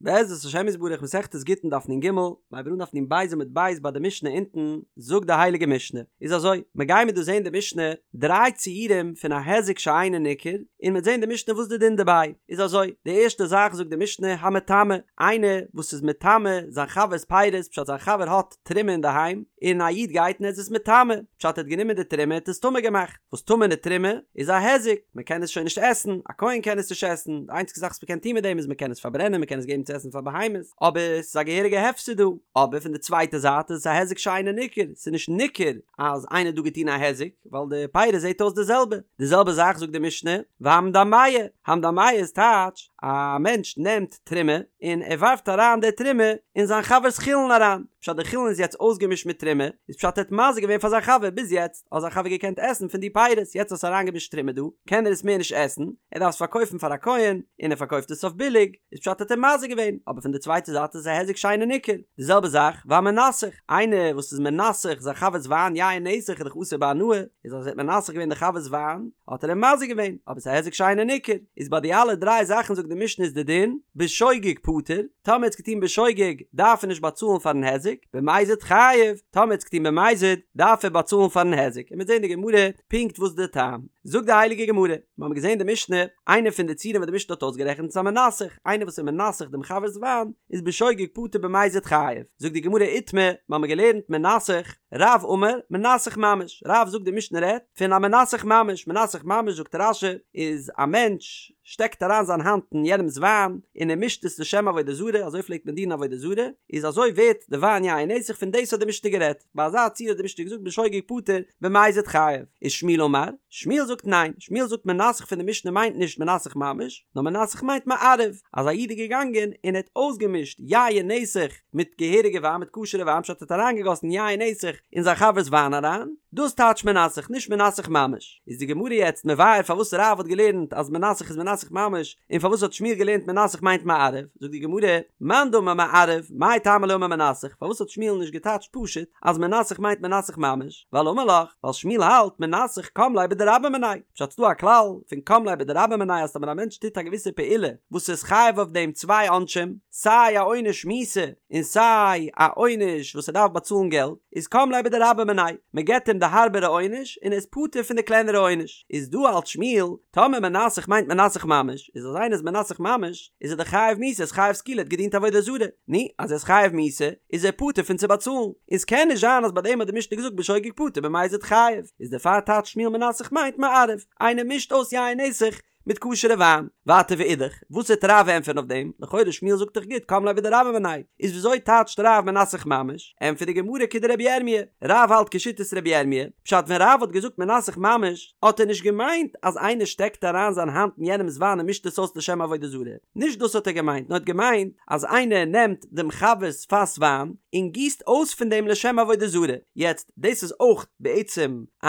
בעזרת השם יתברך מסכת גיטין דף נ ג, מ'הייבט אן דף נ ב עמוד ב' ביי די משנה אונטן, זאגט די הייליגע משנה, איז אזוי, מ'גיימיר דא זעהן די משנה דריי ציורים פון א היזק שאינו ניכר, און מ'וועט זעהן די משנה וואס די דין דערביי, איז אזוי, די ערשטע זאך זאגט די משנה המטמא, איינער וואס איז מטמא זיין חבר'ס פירות פשט זיין חבר האט תרומה אינדערהיים, און א איד גייט און ער איז עס מטמא, פשט ער האט גענומען די תרומה און האט עס טמא געמאכט. וואס טמא'נע תרומה איז א היזק, מען קען עס שוין נישט עסן, א כהן קען עס נישט עסן, די איינציגע זאך וואס מען קען טון מיט דעם איז מען קען עס פארברענען, מען קען עס געבן צו עסן פאר בהמות, אבער עס איז א געהעריגע הפסד דא, אבער פון די צווייטע זייט איז עס א היזק שאינו ניכר, עס איז נישט ניכר אז איינער האט דא געטון א היזק, ווייל די פירות זעט אויס די זעלבע, די זעלבע זאך זאגט די משנה, והמדמע, המדמע איז טייטש, א מענטש נעמט תרומה און ער ווארפט אריין די תרומה אין זיין חבר'ס חולין אריין, פשט די חולין איז יעצט אויסגעמישט מיט תרומה, איז פשט ער האט מזיק געווען פאר זיין חבר, ביז יעצט האט זיין חבר געקענט עסן פון די פירות, יעצט האסט אריינגעמישט תרומה דא, קען ער עס מער נישט עסן, ער דארף עס פארקויפן פאר א כהן, און ער פארקויפט עס אויף ביליג, איז פשט האט ער מזיק געווען, אבער פון די צווייטע זייט איז עס א היזק שאינו ניכר, די זעלבע זאך והמנסך, איינער וואס איז מנסך זיין חבר'ס וויין יין נסך איז דאך אסור בהנאה, איז אז ער האט מנסך געווען די חבר'ס וויין, האט ער אים מזיק געווען, אבער עס איז א היזק שאינו ניכר, איז ביי די אלע דריי זאכן זאגט די משנה איז די דין, בשוגג פטור, טאמער האט עס געטון בשוגג דארף ער נישט באצאלן פארן היזק, במזיד חייב, טאמער האט עס געטון במזיד דארף ער באצאלן פארן היזק, און מ'וועט זען די גמרא פונקט וואס די טעם. זאגט די הייליגע גמרא, מיר האבן געזען די משנה, איינע פון די ציורים וואס די משנה האט אויסגערעכנט איז המנסך, איינער וואס איז מנסך דעם חבר'ס וויין, איז בשוגג פטור במזיד חייב, זאגט די גמרא איתמר, מיר האבן געלערנט מנסך, רב אמר, מנסך ממש, רב זאגט די משנה רעדט פון א מנסך ממש, מנסך ממש זאגט רש"י איז א מענטש שטעקט אריין זיין האנט אין יענעמס וויין און ער מישט עס לשם עבודה זרה, אזוי פלעגט מען דינען עבודה זרה, איז אזוי ווערט די וויין יין נסך, פון דאס האט די משנה גערעדט, ביי אזא ציור האט די משנה געזאגט בשוגג פטור במזיד חייב, ושמואל אמר, שמואל זאגט ניין, שמואל זאגט מנסך פון די משנה מיינט נישט מנסך ממש, נאר מנסך מיינט מערב, אז א איד איז געגאנגען און ער האט אויסגעמישט יין נסך מיט געהעריגע וויין מיט כשר'ע וויין פשט ער האט אריינגעגאסן יין נסך אין זיין חבר'ס וויין אריין, דאס טייטש מנסך נישט מנסך ממש. איז די גמרא יעצט מבאר פארוואס רב האט געלערנט אז מנסך איז מנסך ממש און פארוואס האט שמואל געלערנט מנסך מיינט מערב, זאגט די גמרא, מאן דאמר מערב, מאי טעמא לא אמר מנסך, פארוואס האט שמואל נישט געטייטשט פשוט אז מנסך מיינט מנסך ממש, ווייל אמר לך, ווייל שמואל האלט מנסך קם ליה בדרבה מיניה, פשט ס'דא א כלל פון קם ליה בדרבה מיניה אז טאמער א מענטש טוט א געוויסע פעולה וואס איז חייב אויף דעם צוויי עונשים, סיי א עונש מיתה און סיי א עונש וואס ער דארף באצאלן געלט, איז קם ליה בדרבה מיניה, מען געבט אים די הארבערע עונש און ער איז פטור פון די קלענערע עונש, איז דא האלט שמואל, טאמער מנסך מיינט מנסך ממש, איז אז איינער איז מנסך ממש, איז ער דאך חייב מיתה, איז חייב סקילה, האט געדינט עבודה זרה, נו, אז ער איז חייב מיתה, איז ער פטור פון צו באצאלן, און ס'קען נישט זיין אז ביי דעם האט די משנה געזאגט בשוגג פטור במזיד חייב, איז דערפאר טייטשט שמואל מנסך מיינט מערב, איינער מישט אויס יין נסך מיט כשר'ע וויין. ווייטער ואידך, וואס וועט רב ענטפערן אויף דעם? לכאורה שמואל זאגט דאך גוט קם ליה בדרבה מיניה, איז וויאזוי טייטשט רב מנסך ממש? ענטפערט די גמרא כדרבי ירמי', רב האלט כשיטת רבי ירמי', פשט ווען רב האט געזאגט מנסך ממש, האט ער נישט געמיינט אז איינער שטעקט אריין זיין האנט אין יענעמ'ס וויין און מישט עס אויס לשם עבודה זרה, נישט דאס האט ער געמיינט, נאר האט געמיינט אז איינער נעמט דעם חבר'ס פאס וויין און גיסט אויס פון דעם לשם עבודה זרה, יעצט דאס איז אויך בעצם א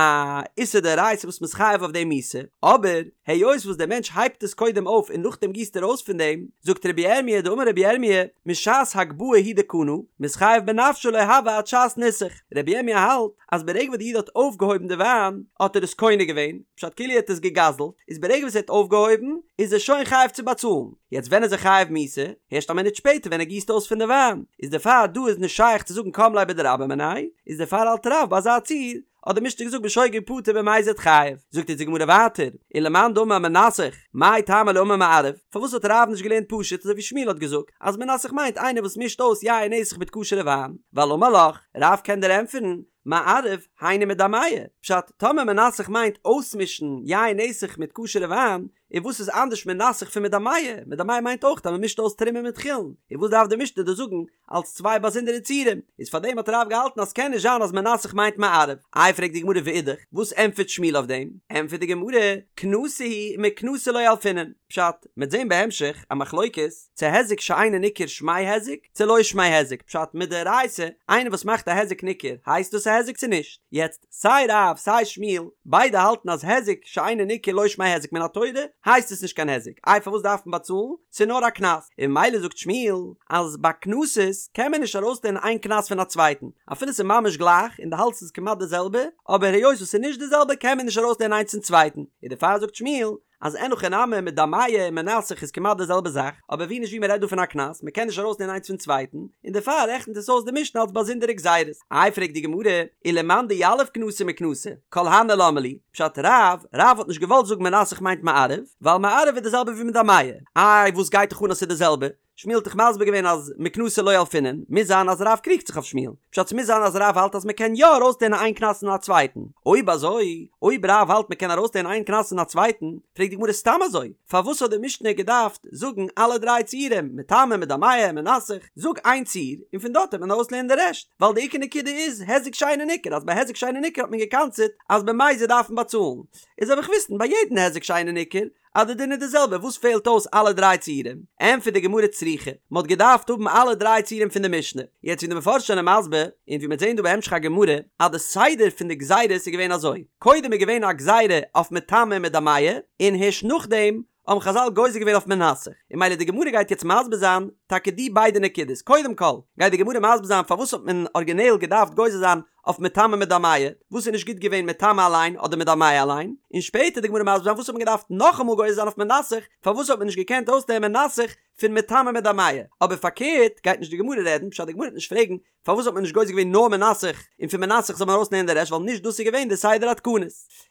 איסור דאורייתא וואס מ'איז חייב אויף דעם מיתה, אבער היות וואס דער מענטש הייבט עס קודם אויף און נאכדעם גיסט ער אויס פון דעם, זאגט רבי ירמי' דאמר רבי ירמי' משעת הגבהה הוא דקנה, מתחייב בנפשו לא הוי עד שעת ניסוך, רבי ירמי' האלט אז ברגע וואס די איד האט אויפגעהויבן די וויין האט ער עס קונה געווען, פשט כאילו ער האט עס געגזלט, איז ברגע וואס ער האט אויפגעהויבן איז ער שוין חייב צו באצאלן, יעצט ווען איז ער חייב מיתה? הערשט א מינוט שפעטער ווען ער גיסט אויס פון די וויין, איז דערפאר דא איז נישט שייך צו זאגן קם ליה בדרבה מיניה, איז דערפאר האלט רב ביי אזא ציור, האט די משנה געזאגט בשוגג פטור במזיד חייב, זאגט אונז די גמרא ווייטער, ולמאן דאמר מנסך, מאי טעמא לא אמר מערב, פארוואס האט רב נישט געלערנט פשוט אזוי ווי שמואל האט געזאגט, אז מנסך מיינט איינער וואס מישט אויס יין נסך מיט כשר'ע וויין, ווייל אמר לך, רב קען דיר ענטפערן, מערב, היינו מדמע, פשט, טאמער מנסך מיינט אויסמישן יין נסך מיט כשר'ע וויין, און וואס איז אנדערש מנסך פון מדמע? מדמע מיינט אויך אז מען מישט אויס תרומה מיט חולין, און וואס דארף די משנה דא זאגן אלס צוויי באזונדערע ציורים? איז פאר דעם האט רב געהאלטן אז ס'קען נישט זיין אז מנסך מיינט מערב. איי פרעגט די גמרא ואידך, וואס ענטפערט שמואל אויף דעם? ענטפערט די גמרא, קנסא הוא ומקנסא לא ילפינן, פשט, מ'עט זען בהמשך א מחלוקת צו היזק שאינו ניכר שמיה היזק צו לא שמיה היזק, פשט מדאורייתא איינער וואס מאכט א היזק ניכר הייסט דאס א היזק צו נישט? יעצט סיי רב סיי שמואל ביידע האלטן אז היזק שאינו ניכר לא שמיה היזק מן התורה הייסט עס נישט קיין היזק איי פארוואס דארף מען באצאלן ס'איז נאר א קנס און ממילא זאגט שמואל אז ביי קנסות קען מען נישט ארויסלערנען איין קנס פון א צווייטן אפילו ס'איז ממש גלייך און דו האלטסט ס'איז כמעט די זעלבע אבער היות וואס ס'איז נישט די זעלבע קען מען נישט ארויסלערנען איינס פון צווייטן און דערפאר זאגט שמואל. אז אין הכי נמי מדמע און מנסך איז כמעט די זעלבע זאך, אבער ווי נישט ווי מ'רעדט דא פון א קנס, מ'קען נישט ארויסלערנען איינס פון צווייטן, און דערפאר רעכנט עס אויס די משנה אלס באזונדערע גזירות. איי פרעגט די גמרא, ולמאן דיליף קנסא מקנסא, כל הני למה לי, פשט רב, רב האט נישט געוואלט זאגן מנסך מיינט מערב, ווייל מערב איז די זעלבע ווי מדמע, איי וואס גייט דיך אן אז ס'איז די זעלבע, שמואל האט דאך מסביר געווען אז מקנסא לא ילפינן, מוז זיין אז רב קריגט זיך אויף שמואל, פשט ס'מוז זיין אז רב האלט אז מ'קען יא ארויסלערנען איין קנס פון א צווייטן, אויב אזוי, אויב רב האלט מ'קען ארויסלערנען איין קנס פון א צווייטן, פרעגט די גמרא סתם אזוי, פארוואס האט די משנה געדארפט זאגן אלע דריי ציורים, מטמא, מדמע, מנסך, זאג איין ציור, און פון דארט וועט מען ארויסלערנען די רעשט, ווייל די עיקר נקודה איז היזק שאינו ניכר, אז ביי היזק שאינו ניכר האט מען געקנס'עט אז במזיד דארף מען באצאלן, איז זאל איך וויסן ביי יעדן היזק שאינו ניכר אז די דין איז די זעלבע, וואס פעלט אויס אלע דריי ציורים? ענטפערט די גמרא צריכא, מען האט געדארפט האבן אלע דריי ציורים פון די משנה, יעצט ווי די מפרשים זענען מסביר, און ווי מ'וועט זען דא בהמשך הגמרא, אז די סדר פון די גזירות איז געווען אזוי, קודם איז געווען א גזירה אויף מטמא און מדמע, און הערשט נאכדעם האבן חזל גוזר געווען אויף מנסך, און ממילא די גמרא גייט יעצט מסביר זיין טאקע די ביידע נקודות, קודם כל גייט די גמרא מסביר זיין פארוואס האט מען ארגינעל געדארפט גוזר זיין אויף מטמא מדמע, וואס איז נישט גוט געווען מטמא אליין אדער מדמע אליין, און שפעטער די גמרא מסביר זיין וואס האט מען געדארפט נאכאמאל גוזר זיין אויף מנסך, פארוואס האט מען נישט געקענט אויסלערנען מנסך פון מטמא מדמע, אבער פארקערט גייט נישט די גמרא רעדן, פשט די גמרא וועט נישט פרעגן פארוואס האט מען נישט גוזר געווען נאר מנסך און פון מנסך זאל מען ארויסלערנען די רעשט ווייל נישט דאס איז געווען די סדר התקנות.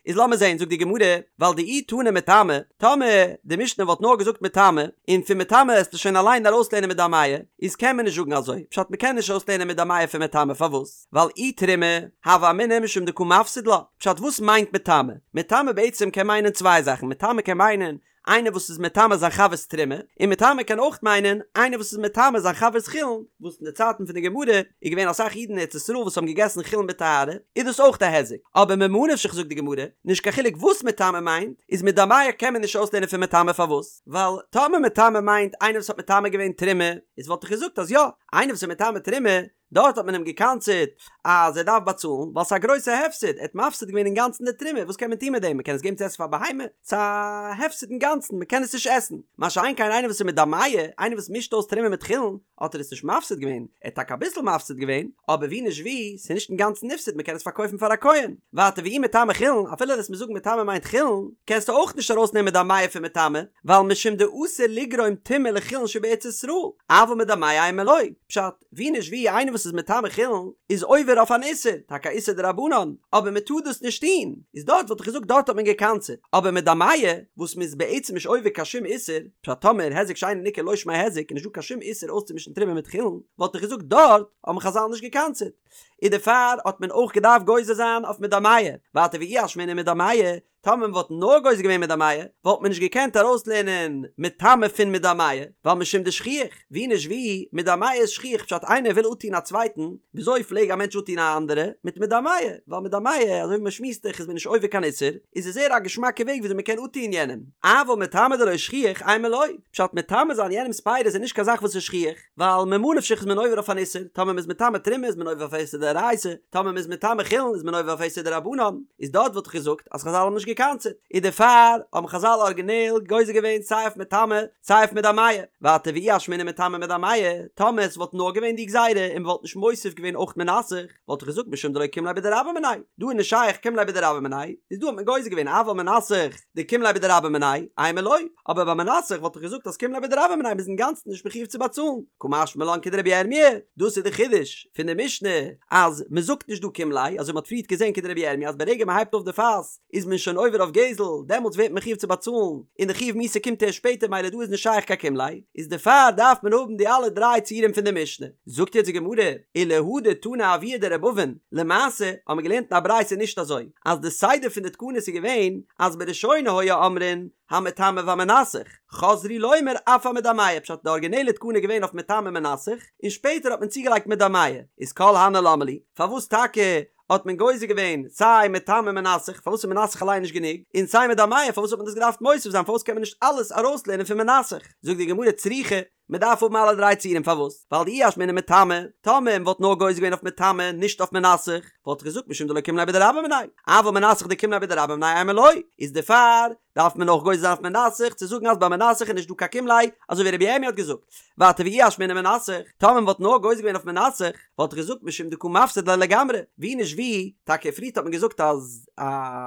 איז לאמיר זעהן זאגט די גמרא ווייל דאי תנא מטמא, טאמער די משנה וואלט נאר געזאגט מטמא און פון מטמא עסטו שוין אליין ארויסלערנען מדמע, איז קען מען נישט זאגן אזוי, פשט מ'קען נישט ארויסלערנען מדמע פון מטמא פארוואס? ווייל אי תרומה, הוה אמינא משום דקא מפסיד לה, פשט וואס מיינט מטמא? מטמא בעצם קען מיינען צוויי זאכן, מטמא קען מיינען איינער וואס איז מטמא זיין חבר'ס תרומה, און מטמא קען אויך מיינען איינער וואס איז מטמא זיין חבר'ס חולין, וואס אין די צייטן פון די גמרא איז געווען אסאך אידן אין ארץ ישראל וואס האבן געגעסן חולין בטהרה, איז דאס אויך א היזק, אבער ממה נפשך זאגט די גמרא, נישט קיין חילוק וואס מטמא מיינט, איז מדמע קען מען נישט אויסלערנען פון מטמא פארוואס? ווייל טאמער מטמא מיינט איינער וואס האט מטמא געווען תרומה, איז וואלט איך געזאגט אז יא, איינער וואס איז מטמא תרומה, דארט האט מען אים געקנס'עט אז ער דארף באצאלן ווייל ס'איז א גרויסע הפסד, ער האט מפסיד געווען אינגאנצן די תרומה, וואס קען מען טון מיט דעם, מ'קען עס געבן צו עסן פאר בהמה? ס'איז א הפסד אינגאנצן, מ'קען עס נישט עסן. מה שאין כן איינער וואס איז מדמע, איינער וואס מישט אויס תרומה מיט חולין, האט ער עס נישט מפסיד געווען, ער האט טאקע אביסל מפסיד געווען, אבער ווי נישט ווי, ס'איז נישט אינגאנצן נפסד, מ'קען עס פארקויפן פאר א כהן. ווייטער ואי מטמא חולין, אפילו וועסט מיר זאגן מטמא מיינט חולין, קענסטו אויך נישט ארויסנעמען מדמע פון מטמא, ווייל משום דאסור לגרום טומאה לחולין שבארץ ישראל, אבל מדמע אימא לא, פשט, ווי נישט ווי איינער וואס איז מטמא חולין איז עובר אויף אן איסור, טאקע א איסור דרבנן, אבער מען טאר דאס נישט טון, איז דארט וואלט איך געזאגט דארט האט מען געקנס'עט, אבער מדמע וואס מען איז בעצם נישט עובר קיין שום איסור, פשט טאמער היזק שאינו ניכר לא שמיה היזק איז נישט דא קיין שום איסור אויסצומישן תרומה מיט חולין, וואלט איך געזאגט דארט האבן חזל נישט געקנס'עט, איז דערפאר האט מען אויך געדארפט גוזר זיין אויף מדמע, ווייטער ואי אשמעינן מדמע, טאמער מען וואלט נאר גוזר געווען מדמע, וואלט מען נישט געקענט ארויסלערנען מטמא פון מדמע, ווייל משום דשכיח, ווי נישט ווי, מדמע איז שכיח פשט איינער וויל אפטון א צווייטן, וויאזוי פלעג א מענטש אפטון א אנדערע? מיט מדמע, ווייל מדמע, אזוי ווי מען שמועסט דאך איז מען נישט עובר קיין איסור, איז עס זייער א געשמאקע וועג וויאזוי מען קען אפטון יענעם, אבל מטמא דלא שכיח, אימא לא, פשט מטמא זיין יענעמ'ס פירות איז נישט קיין זאך וואס איז שכיח. ווייל ממה נפשך איז מען עובר אויף אן איסור, טאמער מ'איז מטמא תרומה איז מען עובר אויף א איסור דאורייתא, טאמער מ'איז מטמא חולין איז מען עובר אויף א איסור דרבנן, איז דארט וואלט איך געזאגט אז חזל האבן נישט געקנס'עט, איז דערפאר האבן חזל ארגינעל גוזר געווען סיי אויף מטמא סיי אויף מדמע, ווייטער ואי אשמעינן מטמא מדמע, טאמער עס וואלט נאר געווען די גזירה און מ'וואלט נישט מוסיף געווען אויך מנסך, וואלט איך געזאגט משום דלא קים ליה בדרבה מיניה, דא איז נישט שייך קים ליה בדרבה מיניה, איז דא האט מען גוזר געווען אבל מנסך דקים ליה בדרבה מיניה, אימא לא, אבער ביי מנסך וואלט איך געזאגט אז קים ליה בדרבה מיניה מ'איז אינגאנצן נישט מחיוב צו באצאלן, קא משמע לן כדרבי ירמי', דאס איז די חידוש פון די משנה אז מ'זאגט נישט דא קים ליה, אזוי מ'האט פריערט געזען כדרבי ירמי' אז ברגע מ'הייבט אויף די פאס איז מען שוין עובר אויף גזל, דעמאלטס ווערט מען מחיוב צו באצאלן, און די חיוב מיתה קומט ערשט שפעטער מילא דא איז נישט שייך קיין קים ליה, איז דערפאר דארף מען האבן די אלע דריי ציורים פון די משנה. זאגט יעצט די גמרא, ולהא דתנא אבוה דר' אבין, למעשה האבן מיר געלערנט אין א ברייתא נישט אזוי, אז די סדר פון די תקנות איז געווען אז בראשונה היו אומרים המטמא והמנסך, חזרו לומר אף המדמע, פשט די ארגינעלע תקנה איז געווען אויף מטמא מנסך, און שפעטער האט מען צוגעלייגט מדמע, איז כל הני למה לי, פארוואס טאקע האט מען גוזר געווען סיי מטמא מנסך, פארוואס איז מנסך אליין נישט גענוג, און סיי מדמע, פארוואס האט מען דאס געדארפט מוסיף זיין, פארוואס קען מען נישט אלעס ארויסלערנען פון מנסך? זאגט די גמרא צריכא, מען דארף האבן אלע דריי ציורים פארוואס? ווייל דאי אשמעינן מטמא, טאמער מען וואלט נאר גוזר געווען אויף מטמא נישט אויף מנסך, וואלט איך געזאגט משום דלא קים ליה בדרבה מיניה, אבל מנסך דקים ליה בדרבה מיניה אימא לא, איז דערפאר דארף מען אויך גוזר זיין אויף מנסך צו זאגן אז ביי מנסך איז נישט דא קיין קים ליה, אזוי ווי רבי ירמי' האט געזאגט. ווייטער ואי אשמעינן מנסך, טאמער מען וואלט נאר גוזר געווען אויף מנסך, וואלט איך געזאגט משום דקא מפסיד ליה לגמרי, ווי נישט ווי, טאקע פריערט האט מען געזאגט אז א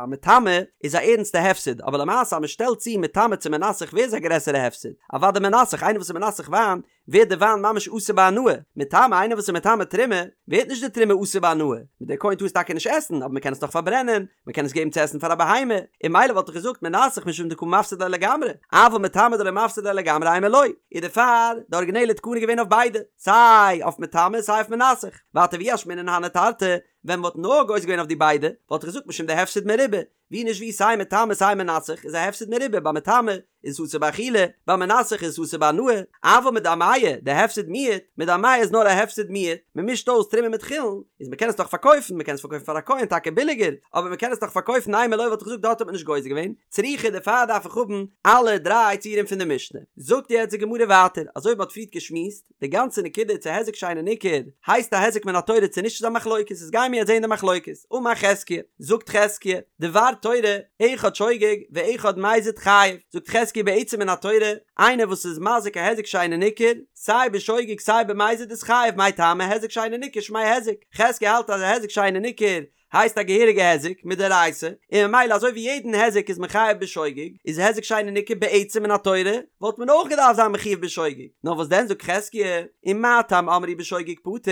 מטמא איז א ערנסטע הפסד, אבער למעשה אז מען שטעלט צו מטמא צו מנסך ווער איז א גרעסערע הפסד? אוודאי מנסך, איינער וואס איז מנסך וויין ווערט די וויין ממש אסור בהנאה, מטמא איינער וואס איז מטמא תרומה ווערט נישט די תרומה אסור בהנאה, דער כהן טאר עס טאקע נישט עסן אבער מען קען עס נאך פארברענען, מען קען עס געבן צו עסן פאר א בהמה, און ממילא וואלט איך געזאגט מנסך משום דקא מפסיד ליה לגמרי, אבל מטמא דלא מפסיד ליה לגמרי אימא לא, איז דערפאר די ארגינעלע תקנה געווען אויף ביידע, סיי אויף מטמא סיי אויף מנסך, ווייטער ואי אשמעינן הני תרתי, ווען מען וואלט נאר גוזר געווען אויף די ביידע, וואלט איך געזאגט משום דהפסד מרובה, ווי נישט ווי סיי מטמא סיי מנסך איז א הפסד מרובה ביי מטמא איז אסור באכילה, ביי מנסך איז אסור בהנאה, אבל מדמע דהפסד מועט, מדמע איז נאר א הפסד מועט, מען מישט אויס תרומה מיט חולין, איז מען קען עס דאך פארקויפן, מען קען עס פארקויפן פאר א כהן טאקע ביליגער, אבער מען קען עס דאך פארקויפן אימא לא וואלט איך געזאגט דארט האט מען נישט גוזר געווען, צריכא דערפאר דארף איך האבן אלע דריי ציורים פון די משנה. זאגט יעצט די גמרא ווייטער, אזוי ווי מען האט פריערט געשמועסט, די גאנצע נקודה צו היזק שאינו ניכר הייסט א היזק מן התורה צו נישט איז א מחלוקת איז גיימיר יעצט זעהן די מחלוקת אמר חזקיה זאגט חזקיה דבר תורה אחד שוגג ואחד מזיד חייב זאגט חזקיה בעצם מן התורה איינער וואס איז מזיק א היזק שאינו ניכר סיי בשוגג סיי במזיד איז חייב מאי טעמא היזק שאינו ניכר שמיה היזק חזקיה האלט אז א היזק שאינו ניכר הייסט א געהעריגע היזק מדאורייתא, און ממילא אזוי ווי יעדן היזק איז מען חייב בשוגג, איז היזק שאינו ניכר בעצם מן התורה, וואלט מען אויך געדארפט זיין מחויב בשוגג. נאר וואס דען זאגט חזקיה, ומה טעם אמרו בשוגג פטור,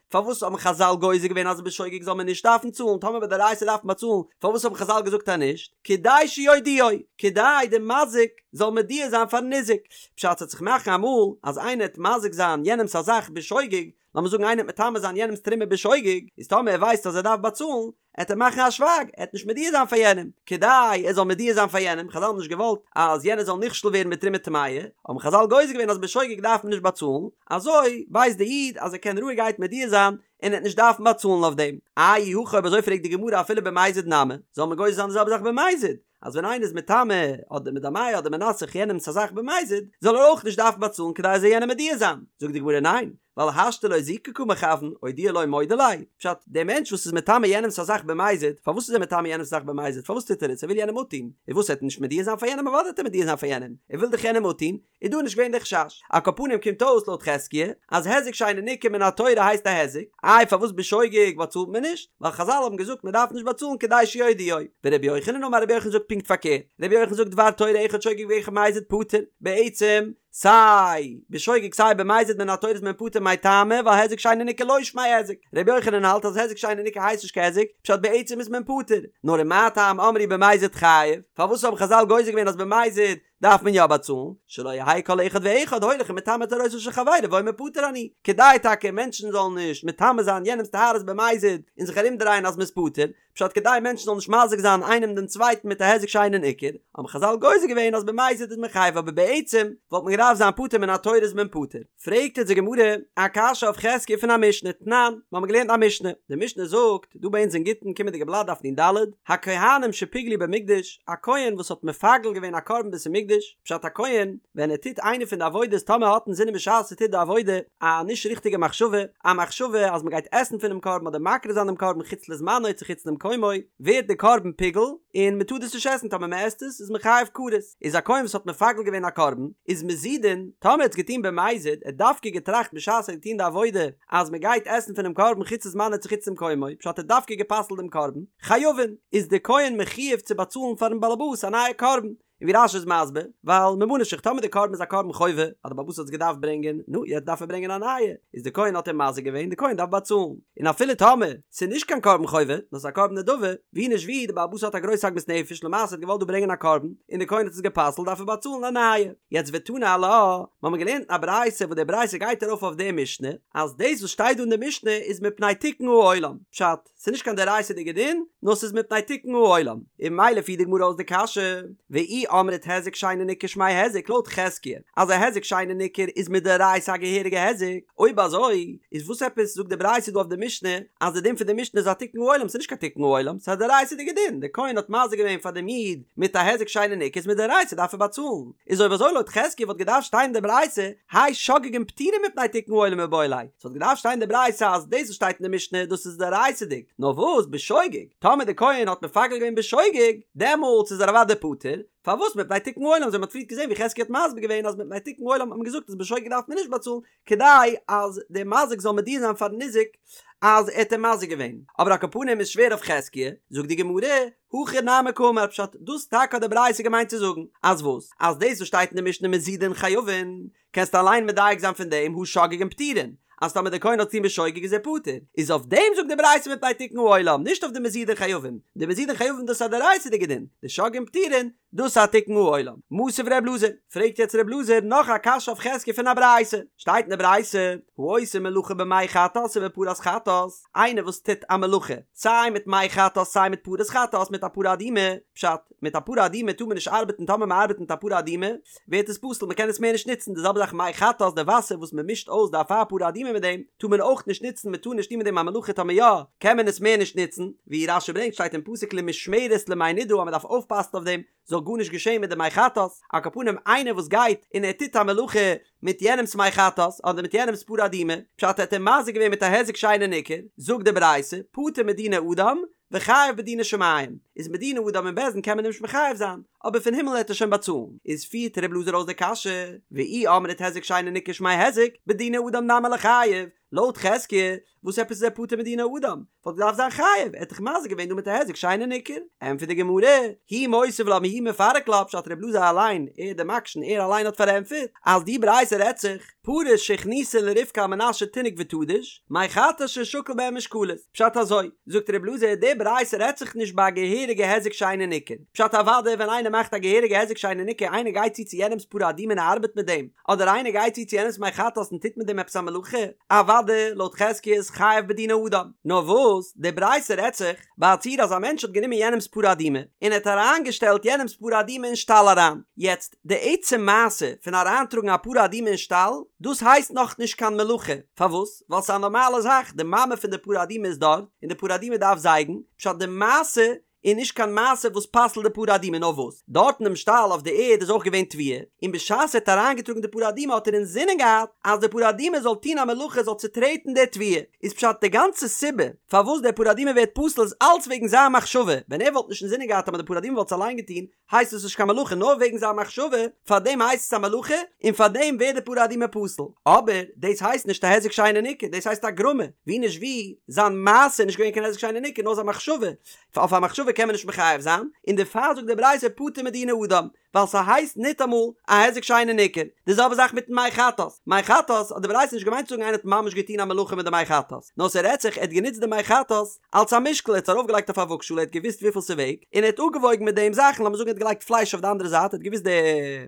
פארוואס האבן חזל גוזר געווען אז בשוגג זאל מען נישט דארפן צאלן, טאמער בדאורייתא דארף מען באצאלן, פארוואס האבן חזל געזאגט אז נישט? כדי שיודיעו, כדי די מזיק זאל מודיע זיין פארן ניזק. פשט ס'עט זיך מאכן אמאל אז איינער עט מזיק זיין יענעמס א זאך בשוגג, לאמיר זאגן איינער וועט מטמא זיין יענעמס תרומה בשוגג, איז טאמער ער ווייסט אז ער דארף באצאלן, עט ער מאכן א שווייג, ער עט נישט מודיע זיין פאר יענעם, כדי ער זאל מודיע זיין פאר יענעם, חזל האבן נישט געוואלט אז יענער זאל נכשל ווערן מיט תרומה טמאה, האבן חזל גוזר געווען אז בשוגג דארף מען נישט באצאלן, אזוי ווייסט די איד אז ער קען רואיגערהייט מודיע זיין און ער עט נישט דארפן באצאלן אויף דעם. אי הכי אויב אזוי פרעגט די גמרא אפילו במזיד נמי, זאל מען גוזר זיין די זעלבע זאך במזיד, אז ווען איינער איז מטמא אדער מדמע אדער מנסך יענעמס א זאך במזיד, זאל ער אויך נישט דארפן באצאלן כדי ער זאל יענעם מודיע זיין. זאגט די גמרא ניין, ווייל השתא לאוזוקי קא מכוון, אודויי לא מודע ליה. פשט, דער מענטש וואס איז מטמא יענעמס א זאך במזיד, פארוואס איז ער מטמא יענעמס א זאך במזיד? פארוואס טוט ער עס? ער וויל יענעם אפטון. און וואס, ער וועט נישט מודיע זיין פאר יענעם? אוודאי וועט ער מודיע זיין פאר יענעם, ער וויל דאך יענעם אפטון. איז דא נישט געווען די חשש. על כל פנים קומט אויס לויט חזקיה אז היזק שאינו ניכר מן התורה הייסט א היזק, איי פארוואס בשוגג באצאלט מען נישט? ווייל חזל האבן געזאגט מען דארף נישט באצאלן כדי שיודיעו. ורבי יוחנן אמר רבי יוחנן זאגט פונקט פארקערט, רבי יוחנן זאגט דבר תורה אחד שוגג ואחד מזיד פטור, בעצם סיי בשוגג סיי במזיד מן התורה איז מען פטור מאי טעמא ווייל היזק שאינו ניכר לא שמיה היזק, רבי יוחנן האלט אז היזק שאינו ניכר הייסט נישט קיין היזק, פשט בעצם איז מען פטור, נאר ומה טעם אמרו במזיד חייב, פארוואס האבן חזל גוזר געווען אז במזיד דארף מען יא באצאלן, שלא יהא כל אחד ואחד הולך ומטמא טהרותיו של חברו ואומר פטור אני, כדי טאקע מענטשן זאלן נישט מטמא זיין יענעמ'ס טהרות במזיד און זיך ארומדרייען אז מ'איז פטור, פשט כדי מענטשן זאלן נישט מזיק זיין איינעם דעם צווייטן מיט א היזק שאינו ניכר, האבן חזל גוזר געווען אז במזיד איז מען חייב אבער בעצם וואלט מען געדארפט זיין פטור מן התורה איז מען פטור. פרעגט אונז די גמרא א קשיא אויף חזקיה פון א משנה, תנן, מיר האבן געלערנט א משנה, די משנה זאגט, דא ביי אונז אין גיטין קומענדיגע בלאט דף נ"ד, הכהנים שפיגלו במקדש, א כהן וואס האט מפגל געווען א קרבן בית המקדש, פשט א כהן ווען ער טוט איינע פון די עבודות טאמער האט אינזינען בשעת ער טוט די עבודה א נישט ריכטיגע מחשבה, א מחשבה אז מען גייט עסן פונעם קרבן אדער מקריב זיין דעם קרבן חוץ לזמנו צו חוץ למקומו, ווערט די קרבן פיגול און מען טאר דאס נישט עסן טאמער מען עסט עס איז מען חייב כרת. איז א כהן וואס האט מפגל געווען א קרבן, איז מזידין, טאמער ער האט עס געטון במזיד, ער האט דווקא געטראכט בשעת ער האט געטון די עבודה אז מען גייט עסן פונעם קרבן חוץ לזמנו צו חוץ למקומו, פשט ער האט דווקא גע'פסל'ט דעם קרבן, חייבין, איז די כהן מחויב צו באצאלן פארן באלעבאס א נייע קרבן, און ווי רש"י איז מסביר, ווייל ממה נפשך טאמער די קרבן איז א קרבן חובה, אז די באלעבאס האט עס געדארפט ברענגען, נו, יעצט דארף ער ברענגען א נייע, איז די כהן האט אים מזיק געווען, די כהן דארף באצאלן, און אפילו טאמער ס'איז נישט קיין קרבן חובה, נאר ס'איז א קרבן נדבה, ווי נישט ווי, די בעל הבית האט א גרויס עגמת נפש, למעשה האט געוואלט דא ברענגען א קרבן, און די כהן האט עס גע'פסל'ט, דארף ער באצאלן א נייע. יעצט ותנא עלה, מ'האמיר געלערנט אין א ברייתא וואס די ברייתא גייט ארויף אויף די משנה, אז דאס וואס שטייט דא אין די משנה איז מפני תיקון העולם, פשט, ס'איז נישט קיין דאורייתא'דיגע דין, נאר ס'איז מפני תיקון העולם, און ממילא פירט די גמרא אויס די קשיא, ואי אמרת היזק שאינו ניכר שמיה היזק לויט חזקיה אז א היזק שאינו ניכר איז מדאורייתא א געהעריגע היזק, אויב אזוי איז וואס עפעס זאגט די ברייתא דא אויף די משנה אז די דין פון די משנה איז א תיקון העולם ס'איז נישט קיין תיקון העולם ס'איז א דאורייתא'דיגע דין די כהן האט מזיק געווען פאר דעם איד מיט א היזק שאינו ניכר איז מדאורייתא דארף ער באצאלן איז אויב אזוי לויט חזקיה וואלט געדארפט שטיין אין די ברייתא האי שוגגין פטורין מפני תיקון העולם מיבעי ליה ס'וואלט געדארפט שטיין אין די ברייתא אז דאס וואס שטייט אין די משנה דאס איז דאורייתא'דיג נאר וואס בשוגג טאמער די כהן האט מפגל געווען בשוגג דעמאלטס איז ער אוודאי פטור פארוואס מפני תיקון העולם אזוי מ'האט פריערט געזען ווי חזקיה האט מסביר געווען אז מפני תיקון העולם האט מען געזאגט אז בשוגג דארף מען נישט באצאלן כדי אז דער מזיק זאל מודיע זיין פארן ניזק אז ער האט אים מזיק געווען, אבער על כל פנים איז שווער אויף חזקיה, זאגט די גמרא, הכי נמי קאמר פשט, דאס טאקע האט די ברייתא געמיינט צו זאגן, אז וואס? אז דאס וואס שטייט אין די משנה מזידין חייבין, קענסטו אליין מדייק זיין פון דעם הא שוגגין פטורין, אז טאמער דער כהן האט געטון בשוגג איז ער פטור, איז אויף דעם זאגט די ברייתא מפני תיקון העולם, נישט אויף די מזידין חייבין, די מזידין חייבין דאס איז א דאורייתא'דיגע דין, די שוגגין פטורין, דאס איז א תיקון העולם. מתיב ר' אלעזר, פרעגט יעצט ר' אלעזר נאך א קשיא אויף חזקיה פון א ברייתא, שטייט אין די ברייתא, העושה מלאכה במי חטאת ובפרת חטאת, איינער וואס טוט א מלאכה, סיי מיט מי חטאת סיי מיט פרת חטאת מיט א פרה אדומה, פשט, מיט א פרה אדומה טאר מען נישט ארבעטן טאמער מען ארבעט מיט א פרה אדומה ווערט עס פסול מען קען עס מער נישט נוצן, די זעלבע זאך מי חטאת די וואסער וואס מען מישט אויס די אפר פרה אדומה מיט דעם טאר מען אויך נישט נוצן מען טאר נישט טון מיט דעם א מלאכה טאמער יא קען מען עס מער נישט נוצן, ווי רש"י ברענגט שטייט אין פסוק למשמרת למי נדה אז מען דארף אויפפאסן אויף דעם זאל גארנישט געשען מיט די מי חטאת, על כל פנים איינער וואס גייט און ער טוט א מלאכה מיט יענעמס מי חטאת אדער מיט יענעמס פרה אדומה, פשט ער האט אים מזיק געווען מיט א היזק שאינו ניכר, זאגט די ברייתא, פטור מדיני אדם, וחייב בדיני שמים, איז מדיני אדם אין בית דין קען מען אים נישט מחייב זיין, אבער פון הימל העט ער שוין באצאלן, איז פירט ר' אלעזר אויס די קשיא, ואי אמרת היזק שאינו ניכר שמיה היזק, בדיני אדם נמי ליחייב, לויט חזקיה, וואס עפעס איז ער פטור מדיני אדם? וואלט געדארפט זיין חייב, ער האט דאך מזיק געווען דא מיט א היזק שאינו ניכר. ענטפערט די גמרא, הוא מותיב לה והוא מפרק לה, פשט ר' אלעזר אליין, ער דער מקשן, ער אליין האט פארענטפערט, אז די ברייתא רעדט זיך, פרות שהכניסה לרבקה על מנת שתינק ותדוש, מי חטאת ששקל בהן משקלות, פשט אזוי, זאגט ר' אלעזר, די ברייתא רעדט זיך נישט ביי א געהעריגע היזק שאינו ניכר, פשט אוודאי ווען איינער מאכט א געהעריגע היזק שאינו ניכר, איינער גייט צו צו יענעמס פרה אדומה און ער ארבעט מיט דעם, אדער איינער גייט צו צו יענעמס מי חטאת און טוט מיט דעם עפעס א מלאכה, אוודאי לויט חזקיה איז חייב בדיני אדם. נאר וואס, די ברייתא רעדט זיך ביי א ציור אז א מענטש האט גענומען יענעמס פרה אדומה און ער האט אריינגעשטעלט יענעמס פרה אדומה אין שטאל אריין. יעצט, די עצם מעשה פון אריינטראגן א פרה אדומה אין שטאל, דאס הייסט נאכנישט קיין מלאכה. פארוואס? ווייל ס'איז א נארמאלע זאך, די מאמע פון די פרה אדומה איז דארט, און די פרה אדומה דארף זייגן, פשט די מעשה איז נישט קיין מעשה וואס פסל'ט די פרה אדומה נאר וואס דארט אינעם שטאל אויף די ערד איז אויך געווען תבואה און בשעת ער האט אריינגעטראגן די פרה אדומה האט ער אינזינען געהאט אז די פרה אדומה זאל טון א מלאכה זאל צוטרעטן די תבואה איז פשט די גאנצע סיבה פארוואס די פרה אדומה ווערט פסול איז אלץ וועגן זיין מחשבה ווען ער וואלט נישט אינזינען געהאט אז די פרה אדומה וואלט עס אליין געטון הייסט עס נישט קיין מלאכה נאר וועגן זיין מחשבה, פאר דעם הייסט עס א מלאכה און פאר דעם ווערט די פרה אדומה פסול, אבער דאס הייסט נישט א היזק שאינו ניכר, דאס הייסט א גרמא, ווי נישט ווי, זיין מעשה איז נישט געווען קיין היזק שאינו ניכר נאר זיין מחשבה, אויף א מחשבה קען מען נישט מחייב זיין, און דערפאר זאגט די ברייתא פטור מדיני אדם, ווייל ס'הייסט ניטאמאל א היזק שאינו ניכר, די זעלבע זאך מיטן מי חטאת, מי חטאת האט די ברייתא נישט געמיינט צו זאגן איינער האט ממש געטון א מלאכה מיט די מי חטאת, נאר ס'רעדט זיך ער האט גענוצט די מי חטאת אלס א משקל, ער האט עס ארויפגעלייגט אויף א וואגשאל, ער האט געוואוסט וויפיל ס'וועגט, און ער האט אפגעוואויגן מיט דעם זאכן, לאמיר זאגן ער האט געלייגט פלייש אויף די אנדערע זייט, ער האט געוואוסט די